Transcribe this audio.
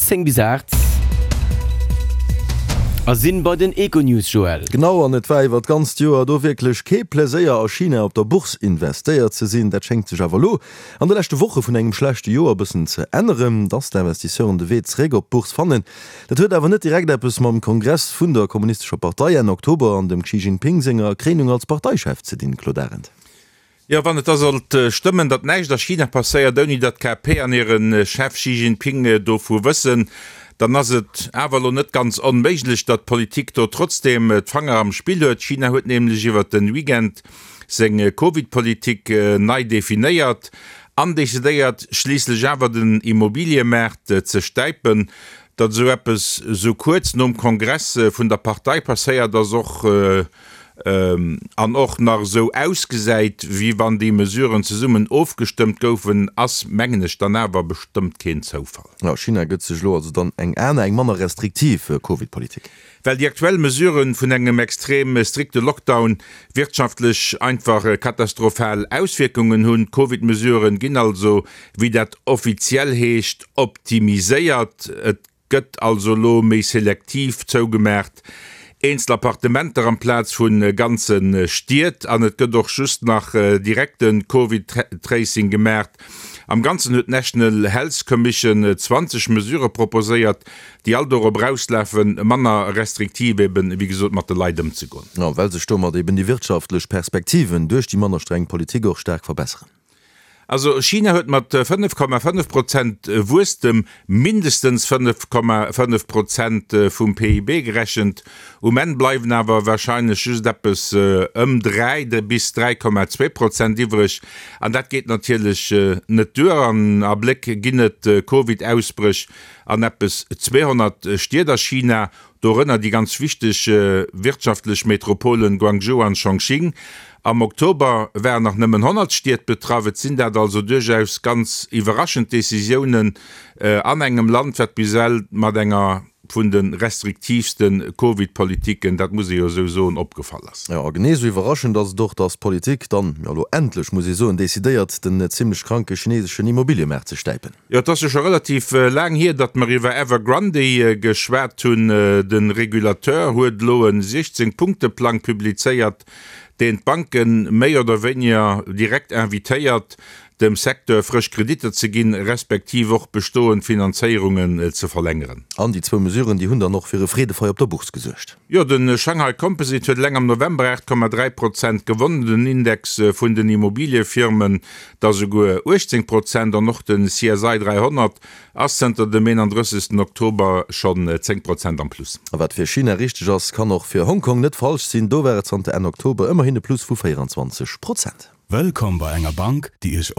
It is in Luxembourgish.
10 bis 8 a sinn bei den Econews, Joël. Genau, an et war iwwer d'ganzt Joer do wierklech kee Pleséier a China op der Bourse investéiert ze sinn. Dat schéngt sech awer elo an de leschte Woche vun engem schlechte Joer e bëssen ze änneren, dass d'Investisseuren de Wee zeréck op d'Bourse fannen. Dat huet awer net direkt eppes mam Kongress vun der Kommunistescher Partei Enn Oktober an dem Xi Jinping senger Kréinung als Parteichef ze dinn, Claude Arend. Jo, wann et da sollt stëmmen, datt näischt a China passéiert, ouni datt d'KP an hire Chef Xi Jinping dovu wëssen, dann ass et awer elo net ganz onméiglech, datt d'Politik do trotzdeem d'Fanger am Spill huet. China huet nämlech iwwert de Weekend seng Covid-Politik nei definéiert an decidéiert schliisslech awer den Immobiliëmaart ze stäipen. Datt esou eppes esou kuerz nom Kongress vun der Partei passéiert, ass och an och nach esou ausgesäit, wéi wann déi Mesuren zesummen ofgestëmmt goufen, ass, mengen ech, dann awer bestëmmt keen Zoufall. Jo, China gëtt sech elo also dann eng aner, eng manner restriktiv Covid-Politik. Well déi aktuell Mesuren vun engem extrem strikte Lockdown wirtschaftlech einfach katastrophal Auswierkungen hunn. D'Covid-Mesuren ginn also, wéi dat offiziell heescht, optimiséiert. Et Gëtt also elo méi selektiv zougemaacht, eenzel Appartementer amplaz vu ganze Stied, an et gëtt och just nach direkte Covid-Tracing gemaacht. Am Ganzen huet d'National Health Commission 20 Mesurë proposéiert, déi all dorop erauslafen, manner restriktiv eben, wéi gesot, mat de Leit ëmzegoen. A well sech domat eben déi wirtschaftlech Perspektiven duerch déi manner streng Politik och staark verbesseren. Also China huet mat 5,5 Prozent Wuesstem mindestens 5,5 Prozent vum PIB gerechent. Um Enn bleiwen awer warscheinlech just eppes ëm 3 bis 3,2 Prozent iwwreg. An dat geet natierlech net duer. An Abléck ginn et Covid-Ausbréch an eppes 200 Stied a China. Dorënner déi ganz wichteg wirtschaftlech Metropolen Guangzhou an Chongqing. Am Oktober waren nach nëmmen 100 Stied betraff. Et sinn dat also duerchaus ganz iwwerraschend Decisiounen an engem Land, wat bis ewell mat enger vun de restriktiivste Covid-Politiken, dat muss ee jo esou soen, opgefall ass. Jo, a genee esou iwwerraschend ass et och, datt d'Politik dann, jo elo endlech muss ee soen, decidéiert, den zimmlech kranke chineseschen Immobiliëmaart ze stäipen. Jo, et ass jo scho relativ laang hier, datt mer iwwer Evergrande geschwat hunn. De Regulateur huet elo e 16 Punkte-Plang publizéiert, deen d'Banke méi oder wéiniger direkt invitéiert, dem Secteur frësch Kreditter ze ginn, respektiv och bestoend Finanzéierungen ze verlängeren. An déi zwou Mesuren, déi hunn dann och fir e Freedefeier op der Bourse gesuergt. Jo, de Shanghai Composite huet eleng am November 8,3 Prozent gewonnen, den Index vun den Immobiliëfirmen da souguer 18 Prozent an och de CSI 300 ass zënter dem 31. Oktober schonn 10 Prozent am Plus. A wat fir China richteg ass, kann och fir Hongkong net falsch sinn, do war et zanter Enn Oktober ëmmerhin e Plus vu 24 Prozent. Wëllkomm bei enger Bank, déi Iech.